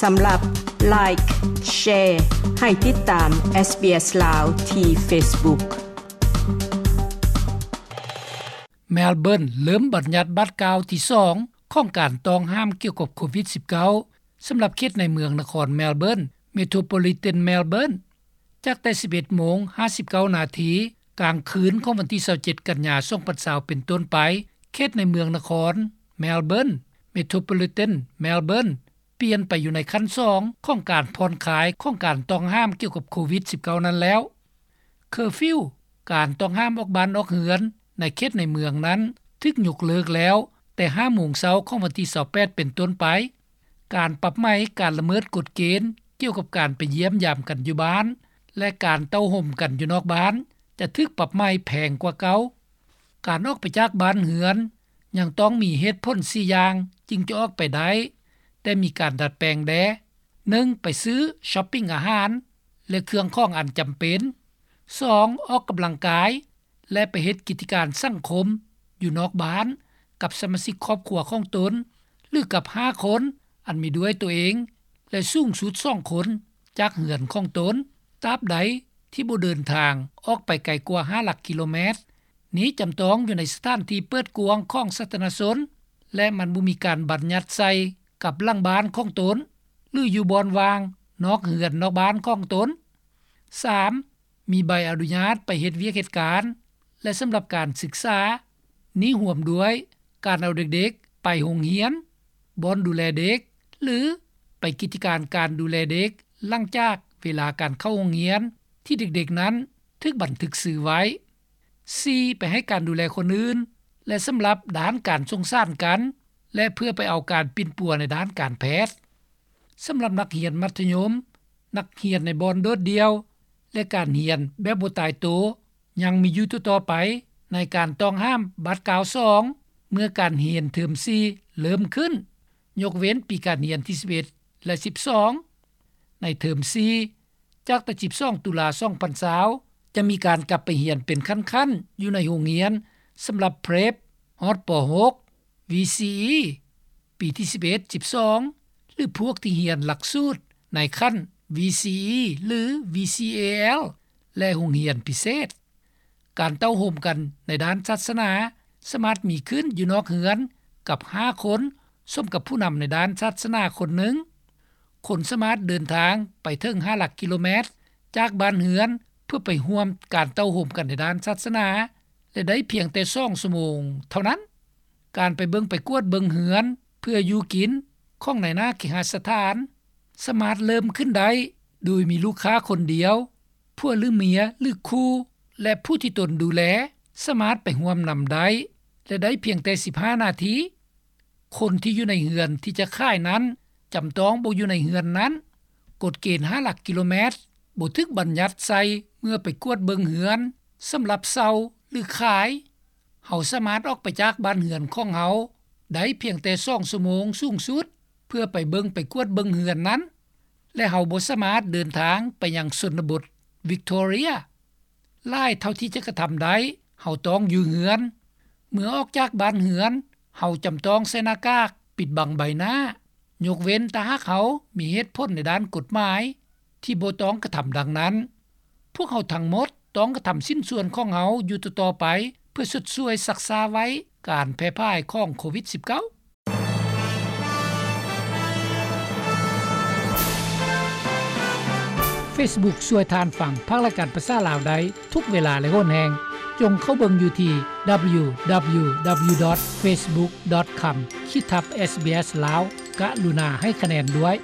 ສຳລັບ Like, Share ໃຫ້ຕິດຕາມ SBS ລາວ ທີ່ Facebook. ແມລເບີນເລີ່ມບັນຍັດບາດກ້າວທີສອງຂອງການຕ້ອງຫ້າມກ່ຽວກັບໂຄວິດ-ສິບເກົ້າ ສຳລັບເຂດໃນເມືອງນະຄອນແມລເບີນ Metropolitan Melbourne ຈາກແຕ່ ສິບເອັດໂມງ ຫ້າສິບເກົ້ານາທີ ກາງຄືນຂອງວັນທີ ຊາວເຈັດ ກັນຍາ ສອງພັນຊາວ ເປັນຕົ້ນໄປ, ເຂດໃນເມືອງນະຄອນແມລເບີນ Metropolitan Melbourne ປ່ຽນໄປຢູ່ໃນຂັ້ນສອງຂອງການຜ່ອນຄາຍຂອງການຕ້ອງຫ້າມກ່ຽວກັບໂຄວິດ-ສິບເກົ້າ ນັ້ນແລ້ວ. ເຄີຟິວ, ການຕ້ອງຫ້າມອອກບ້ານອອກເຮືອນໃນເຂດໃນເມືອງນັ້ນ ຖືກຍົກເລີກແລ້ວແຕ່ ຫ້າໂມງເຊົ້າຂອງວັນທີ ຊາວແປດ ເປັນຕົ້ນໄປ. ການປັບໃໝການລະເມີດກົດເກນກ່ຽວກັບການໄປຢ້ຽມຢາມກັນຢູ່ບ້ານ ແລະ ການເຕົ້າໂຮມກັນຢູ່ນອກບ້ານ ຈະຖືກປັບໃໝແພງກວ່າເກົ່າ. ການອອກໄປຈາກບ້ານເຮືອນ ຍັງຕ້ອງມີເຫດຜົນ ສີ່ ຢ່າງຈຶ່ງຈະອອກໄປໄດ້, ແຕ່ມີການດັດແປງແດ່. ໜຶ່ງ ໄປຊື້, ຊັອບປິງອາຫານ ແລະ ເຄື່ອງຂອງອັນຈຳເປັນ. ສອງ ອອກກຳລັງກາຍ ແລະ ໄປເຮັດກິດຈະການສັງຄົມຢູ່ນອກບ້ານກັບສະມາຊິກຄອບຄົວຂອງຕົນ ຫຼື ກັບຫ້າຄົນ ອັນມີດ້ວຍຕົວເອງ ແລະ ສູງສຸດສອງຄົນຈາກເຮືອນຂອງຕົນ, ຕາບໃດທີ່ບໍ່ເດີນທາງອອກໄປໄກກວ່າຫ້າຫຼັກກິໂລແມັດ. ນີ້ຈຳຕ້ອງຢູ່ໃນສະຖານທີ່ເປີດກວ້າງຂອງສາທາລະນະຊົນ ແລະ ມັນບໍ່ມີການບັນຍັດໃສ່ກັບຫຼັງບ້ານຂອງຕົນ ຫຼື ຢູ່ບ່ອນວ່າງນອກເຮືອນນອກບ້ານຂອງຕົນ. ສາມ ມີໃບອະນຸຍາດໄປເຮັດວຽກເຮັດການ ແລະ ສຳລັບການສຶກສາ. ນີ້ຮວມດ້ວຍການເອົາເດັກໆໄປໂຮງຮຽນ, ບ່ອນດູແລເດັກ ຫຼື ໄປກິດຈະການການດູແລເດັກ ຫຼັງຈາກເວລາການເຂົ້າໂຮງຮຽນ ທີ່ເດັກໆນັ້ນຖືກບັນທຶກຊື່ໄວ້. ສີ່ ໄປໃຫ້ການດູແລຄົນອື່ນ ແລະ ສຳລັບດ້ານການສົງສານກັນ ແລະ ເພື່ອໄປເອົາການປິ່ນປົວໃນດ້ານການແພດ. ສຳລັບນັກຮຽນມັດທະຍົມ, ນັກຮຽນໃນບ່ອນໂດດດ່ຽວ ແລະ ການຮຽນແບບບໍ່ຕາຍໂຕ ຍັງມີຢູ່ຕໍ່ໆໄປ ໃນການຕ້ອງຫ້າມບາດກ້າວສອງ ເມື່ອການຮຽນເທີມສີ່ເລີ່ມຂຶ້ນ, ຍົກເວັ້ນປີການຮຽນທີ ສິບເອັດ ແລະ ສິບສອງ. ໃນເທີມສີ່ ຈາກແຕ່ ສິບສອງ ຕຸລາ ສອງພັນຊາວ ຈະມີການກັບໄປຮຽນເປັນຂັ້ນໆ ຢູ່ໃນໂຮງຮຽນ ສຳລັບ Prep ຮອດ ປໍຫົກ VCE ປີທີ ສິບເອັດ ສິບສອງ ຫຼື ພວກທີ່ຮຽນຫຼັກສູດໃນຂັ້ນ VCE ຫຼື VCAL ແລະ ໂຮງຮຽນພິເສດ. ການເຕົ້າໂຮມກັນໃນດ້ານສາສະໜາ ສາມາດມີຂຶ້ນຢູ່ນອກເຮືອນກັບຫ້າຄົນ ສົມກັບຜູ້ນຳໃນດ້ານສາສະໜາຄົນໜຶ່ງ. ຄົນສາມາດເດີນທາງໄປເຖິງຫ້າຫຼັກກິໂລແມັດຈາກບ້ານເຮືອນ ເພື່ອໄປຮ່ວມການເຕົ້າໂຮມກັນໃນດ້ານສາສະໜາ ແລະ ໄດ້ພຽງແຕ່ສອງຊົ່ວໂມງເທົ່ານັ້ນ. ການໄປເບິ່ງໄປກວດເບິ່ງເຮືອນເພື່ອຢູ່ກິນຂອງນາຍໜ້າເຄຫະສະຖານ ສາມາດເລີ່ມຂຶ້ນໄດ້ໂດຍມີລູກຄ້າຄົນດຽວ, ຜົວຫຼືເມຍ ຫຼື ຄູ່ ແລະ ຜູ້ທີ່ຕົນດູແລ ສາມາດໄປຮ່ວມນຳໄດ້ ແລະ ໄດ້ພຽງແຕ່ ສິບຫ້ານາທີ. ຄົນທີ່ຢູ່ໃນເຮືອນທີ່ຈະຂາຍນັ້ນ ຈຳຕ້ອງບໍ່ຢູ່ໃນເຮືອນນັ້ນ. ກົດເກນຫ້າຫຼັກກິໂລແມັດ ບໍ່ຖືກບັນຍັດໃສ່ເມື່ອໄປກວດເບິ່ງເຮືອນ ສຳລັບເຊົ່າ ຫຼື ຂາຍ. ເຮົາສາມາດອອກໄປຈາກບ້ານເຮືອນຂອງເຮົາໄດ້ພຽງແຕ່ສອງຊົ່ວໂມງສູງສຸດ ເພື່ອໄປເບິ່ງໄປກວດເບິ່ງເຮືອນນັ້ນ ແລະ ເຮົາບໍ່ສາມາດເດີນທາງໄປຍັງຊົນນະບົດ Victoria ຫຼາຍເທົ່າທີ່ຈະກະທຳໄດ້. ເຮົາຕ້ອງຢູ່ເຮືອນ. ເມື່ອອອກຈາກບ້ານເຮືອນ ເຮົາຈຳຕ້ອງໃສ່ໜ້າກາກປິດບັງໃບໜ້າ ຍົກເວັ້ນຖ້າຫາກເຮົາມີເຫດຜົນໃນດ້ານກົດໝາຍທີ່ບໍ່ຕ້ອງກະທຳດັ່ງນັ້ນ. ພວກເຮົາທັງໝົດຕ້ອງກະທຳຊິ້ນສ່ວນຂອງເຮົາຢູ່ຕໍ່ໆໄປ ເພື່ອຊົດຊ່ວຍຊັກຊ້າໄວ້ການແຜ່ພາຍຂອງໂຄວິດ-ສິບເກົ້າ. Facebook ຊ່ວຍທ່ານຟັງພາກລາຍການພາສາລາວໄດ້ທຸກເວລາ ແລະ ໂຫນແຮງ. ຈົ່ງເຂົ້າເບິ່ງຢູ່ທີ່ www.facebook.com/sbslao ກະລຸນາໃຫ້ຄະແນນດ້ວຍ.